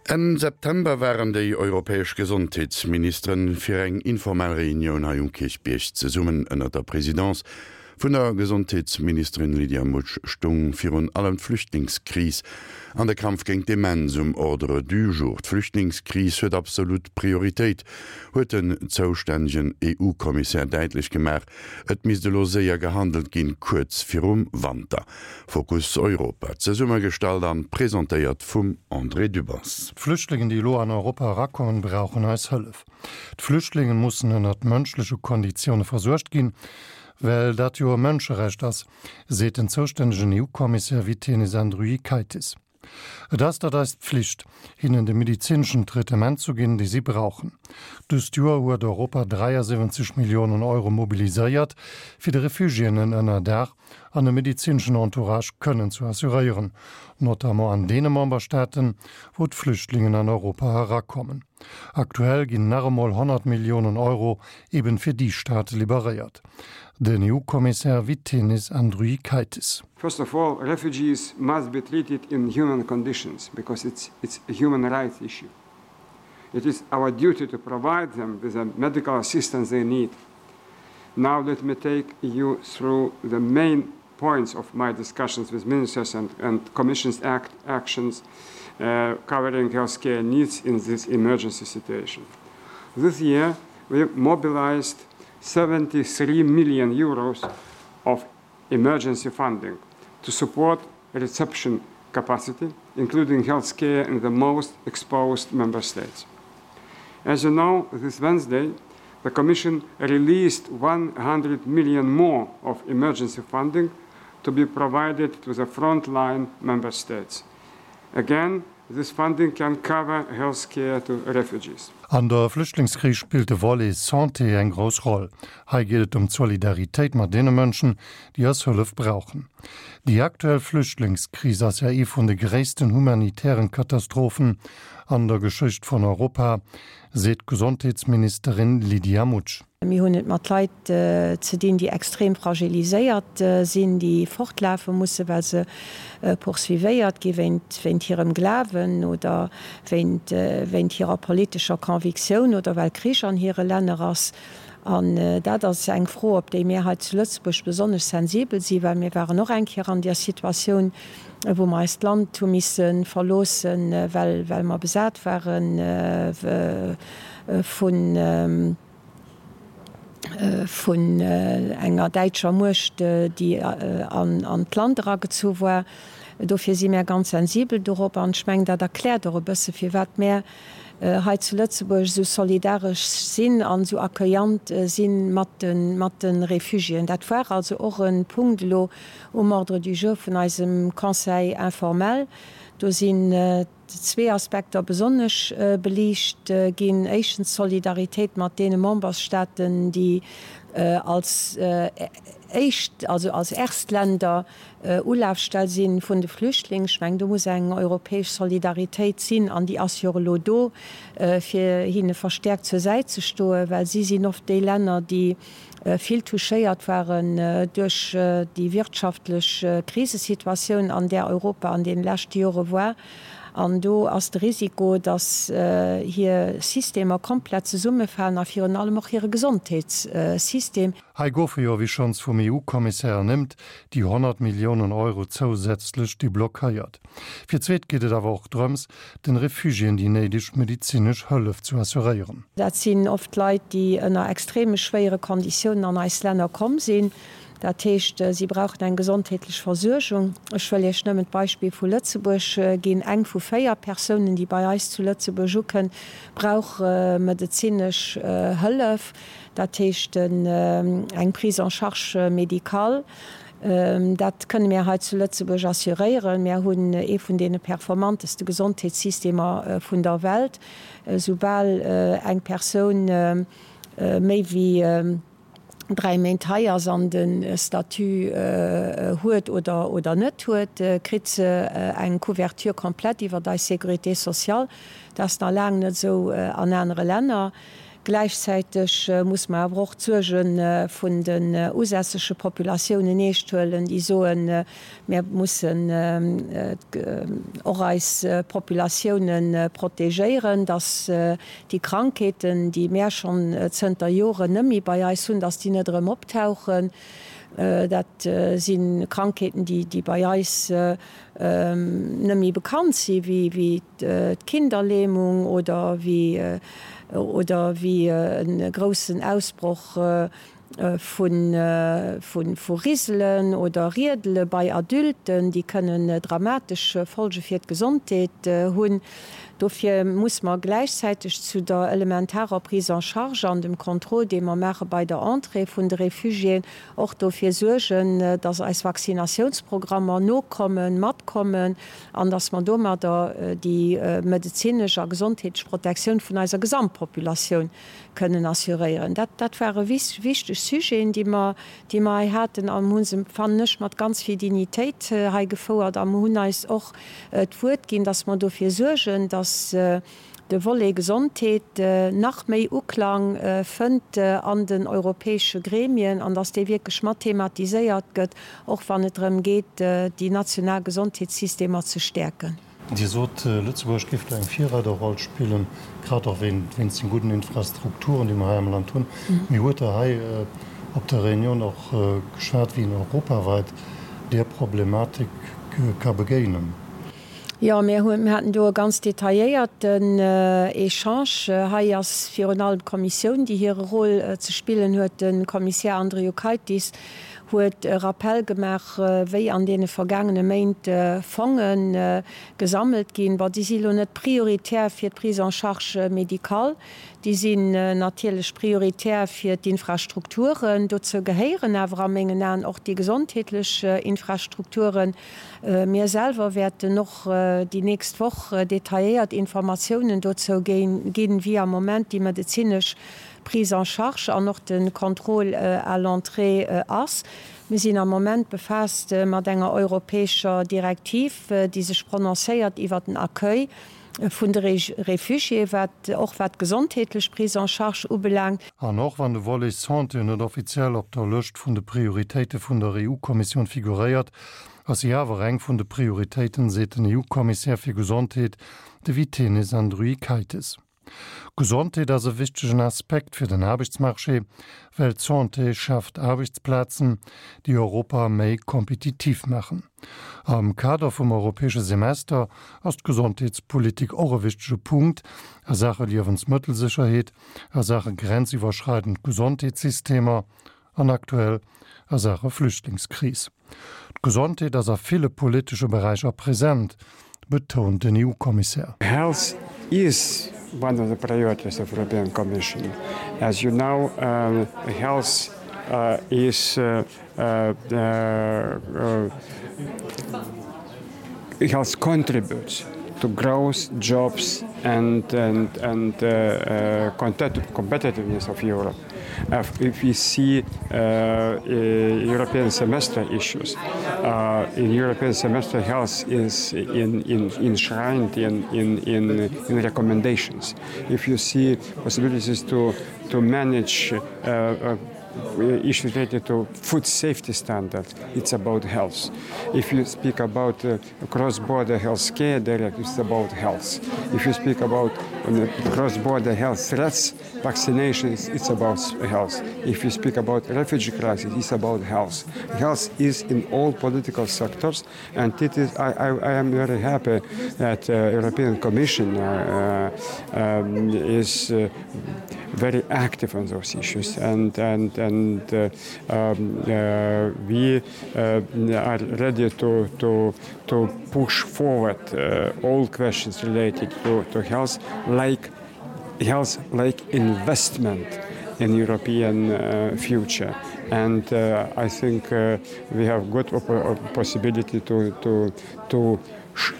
Enn September waren déi europäesch Gesondheetsministeren fir eng informell Reunioun hei um Kierchbierg zesummen. Ënnert der Presidence vun der Gesondheetsministerin Lydia Mutsch stung virun allem d'Flüchtlingskris an de Kampf géint d'Demenz um Ordre du jour. D'Flüchtlingskris huet absolut Prioritéit, huet den zoustännegen EU-Kommissär däitlech gemaach. Et misst elo séier gehandelt ginn, kuerz virum Wanter. Fokus Europa, zesummegestallt an presentéiert vum André Dübbers. D'Flüchtlingen, déi elo an Europa erakommen, brauchen eis Hëllef. D'Flüchtlingen mussen ënnert mënschleche Konditioune versuergt ginn, well dat jo e Mënscherecht ass, seet den zoustännegen EU-Kommissär Vytenis Andriukaitis. Et ass dat eis Pflicht, hinnen de medezineschen Traitement zu ginn, dee si brauchen. Dëst Joer huet Europa 73 Milliounen Euro mobiliséiert, fir de Refugiéen en Ënnerdaach an e medezineschen Entourage kënnen zu assuréieren, notamment an deene Memberstaaten, wou d'Flüchtlingen an Europa erakommen. Aktuell ginn nach emol 100 Milliounen Euro eben fir déi Staate liberéiert. Den EU-Kommissär Vytenis Andriukaitis. First of all, refugees must be treated in human conditions because it's, it's a human rights issue. It is our duty to provide them with the medical assistance they need. Now let me take you through the main points of my discussions with ministers and, and Commission's act actions uh, covering healthcare needs in this emergency situation. This year, we mobilized 73 million euros of emergency funding to support reception capacity, including healthcare in the most exposed member states. As you know, this Wednesday, the Commission released 100 million more of emergency funding to be provided to the frontline member states. Again, this funding can cover health care to refugees. An der Flüchtlingskris spillt de Volet Santé eng grouss Roll. Hei geet et ëm d'Solidaritéit mat deene Mënschen, déi eis Hëllef brauchen. Déi aktuell Flüchtlingskris ass ja ee vun de gréissten humanitären Katastrophen an der Geschicht vun Europa, seet d'Gesondheetsministerin Lydia Mutsch. Mir hunn et mat Leit ze dinn, déi extrem fragiliséiert sinn, déi fortlafe mussen, well se poursuivéiert gi wéint hirem Glawen oder wéint hirer politescher Convictioun oder well Krich an hire Länner ass. An dat ass eng Fro, op déi mir hei zu Lëtzebuerg besonnesch sensibel sinn, well mir waren och eng Kéier an där Situatioun, wou mer eist Land hu misse verloossen, well mer besat ware vun. vun enger däitscher Muecht, déi an d'Land eragezu war. Dofir si mär ganz sensibel dorop. An ech mengen, dat erkläert och e bësse firwat mär hei zu Lëtzebuerg esou solidaresch sinn an esou accueillant si mat de Réfugiéen. Dat war also och e Punkt elo um Ordre du jour vun eisem Conseil informel. Do sinn zwee Aspekter besonnesch beliicht ginn. Éischtens d'Solidaritéit mat deene Membersstaaten, déi als éischt, also als Erstländer Ulafstell si vun de Flüchtlingen. Ech mengen, do muss eng europäesch Solidaritéit sinn, an déi ass jo och elo do, fir hinne verstäerkt zur Säit ze stoen, well si sinn oft déi Länner, déi vill touchéiert waren duerch déi wirtschaftlech Krisesituatioun, an där Europa an deene leschte Jore war. An do ass de Risiko, datt hir Systemer komplett zesummefalen a virun allem och hire Gesondheetssystem. Hei goufe jo, wéi schonns vum EU-Kommissär ernimmt, déi 100 Milliounen Euro zousätzlech deblockéiert. Fir d'zweet geet et awer och drëms, den Refugiéen déi néideg medezinesch Hëllef zu assuréieren. Dat sinn oft Leit, déi ënner extreme schwéiere Konditiounen an eis Länner komm sinn. Dat heescht, si brauchen eng gesondheetlech Versuergung. Ech wëll Iech nëmmen d'Beispill vu Lëtzebuerg ginn, Eng vu 4 Persounen, déi bei eis zu Lëtzebuerg ukënn, brauch medezinesch Hëllef, dat heescht eng Prise en charge médicale. Dat kënne mir hei zu Lëtzebuerg assuréieren. Mir hunn ee vun deene performanteste Gesondheetssystemer vun der Welt. Soubal eng Persoun méi wéi 3 Méint hei ass an de Statut huet oder net huet, kritt se eng Couverture complète iwwert eis Sécurité sociale. Dat ass nach laang net esou an anere Länner. Gläichzäiteg muss mer awer och d'Suerge vun den usässege Populatiounen eescht huelen, déi soen, Mir mussen och eis Populatioune protegéieren, dass déi Krankheeten, déi mär schonn zënter Joren net méi bei eis hunn, dass déi net erëm optauchen. Dat si Krankheeten, déi bei eis net méi bekannt si wéi d'Kinderlähmung oder wéi e groussen Ausbroch vu Riselen oder Riedele bei Adulten, déi kënnen dramatesch Folge fir d'Gesondheet hunn. Dofir muss mer gläichzäiteg zu der elementarer Prise en charge an dem Contrôle, dee mer maache bei der Entrée vun de Réfugiéen, och dofir suergen, dass eis Vaccinatiounsprogrammer nokommen, matkommen an dass mer domadder déi medezinesch a gesondheetlech Protektioun vun eiser Gesamtpopulatioun kënnen assuréieren. Dat, dat ware wichteg Sujeten, déi mer, déi mer hei haten a mer hu se, fannen ech, mat ganz vill Dignitéit hei gefouert a mer hunn eis och d'Wuert ginn, dass mer dofir suergen, dass de Volet Gesondheet nach méi Uklang fënnt an den europäesche Gremien an dass dee wierklech mat thematiséiert gëtt, och wann et drëm geet, déi national Gesondheetssystemer ze stäerken. Dir sot, Lëtzebuerg géif do eng Virreiderroll spillen, grad och wéinst den gudden Infrastrukturen, déi mer hei am Land hunn. Mee huet Der hei op der Reunioun och geschwat, wéi een europaweit där Problematik ka begéinen? Jo, mir haten do e ganz detailléierten Echange. Hei ass virun allem d'Kommissioun, déi hire Rôle ze spillen huet. De Kommissär Andriukaitis huet e Rappell gemaach, wéi an deene vergaangene Méint Fonge gesammelt ginn. Bon, déi si lo net prioritär fir d'Prise en charge médicale, déi sinn natierlech prioritär fir d'Infrastrukturen. Dozou gehéieren awer a mengen Aen och déi gesondheetlech Infrastrukturen. Mir selwer wäerten och déi nächst Woch detailléiert Informatiounen dozou ginn, wéi am Moment déi medezinesch Prise en charge an och de Contrôle à l'entrée ass. Mir sinn am Moment befaasst mat enger europäescher Direktiv, déi sech prononcéiert iwwert den Accueil vun de Réfugiés, wat och wat d'gesondheetlech Prise en charge ubelaangt. An och wann de Volet Santé net offiziell op der Lëscht vun de Prioritéite vun der EU-Kommissioun figuréiert, ass si awer eng vun de Prioritéiten, seet den EU-Kommissär fir Gesondheet, de Vytenis Andriukaitis. Gesondheet ass e wichtegen Aspekt fir den Aarbechtsmarché, well d'Santé schaaft Aarbechtsplazen, déi Europa méi kompetitiv maachen. Am Kader vum europäesche Semester ass d'Gesondheetspolitik och e wichtege Punkt a Saache Liewensmëttelsécherheet, a Saache grenziwwerschreidend Gesondheetssystemer an aktuell a Saache Flüchtlingskris. D'Gesondheet ass a ville politesche Beräicher present, betount den EU-Kommissär. Health is one of the priorities of European Commission. As you know, health is health contributes to growth, jobs and and and competitiveness of Europe. If we see European semester issues, in European semester health is in in enshrined in in in in recommendations. If you see possibilities to to manage issues related to food safety standards, it's about health. If you speak about uh, cross-border health care directive, it's about health. If you speak about uh, cross-border health threats, vaccinations, it's about health. If you speak about refugee crisis, it's about health. Health is in all political sectors, and it is, I, I, I am very happy that uh, European Commission uh, um, is uh, very active on those issues and and and uh, um, uh, we uh, are ready to to to push forward uh, all questions related to, to health like health like investment in European uh, future and uh, I think uh, we have good possibility to to to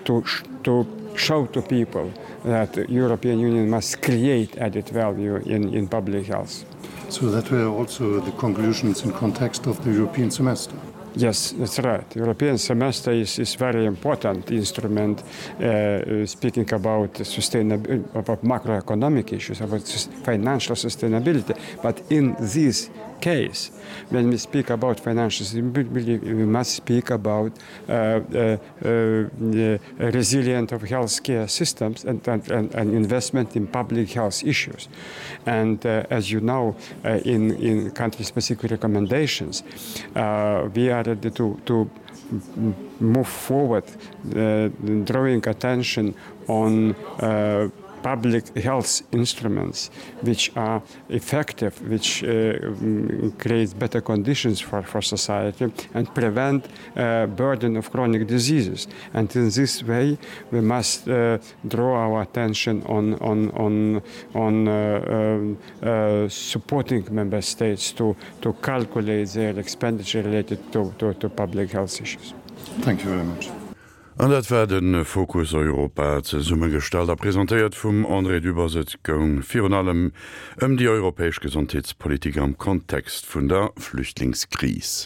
to to show to people that the European Union must create added value in in public health. So that were also the conclusions in context of the European semester. Yes, that's right. The European semester is, is very important instrument uh, speaking about sustainability, about macroeconomic issues, about financial sustainability. But in this case, when we speak about financial sustainability, we must speak about uh, uh, uh, resilient of healthcare systems and, and, and, and investment in public health issues. And uh, as you know, uh, in, in country-specific recommendations, uh, we are ready to, to move forward, uh, drawing attention on uh, public health instruments which are effective, which uh, create better conditions for, for society and prevent uh, burden of chronic diseases. And in this way, we must uh, draw our attention on, on, on, on uh, uh, uh, supporting member states to, to calculate their expenditure related to, to, to public health issues. Thank you very much. An dat war de Fokus Europa, zesummegestallt a presentéiert vum André Dübbers. Et goung virun allem ëm déi europäesch Gesondheetspolitik am Kontext vun der Flüchtlingskris.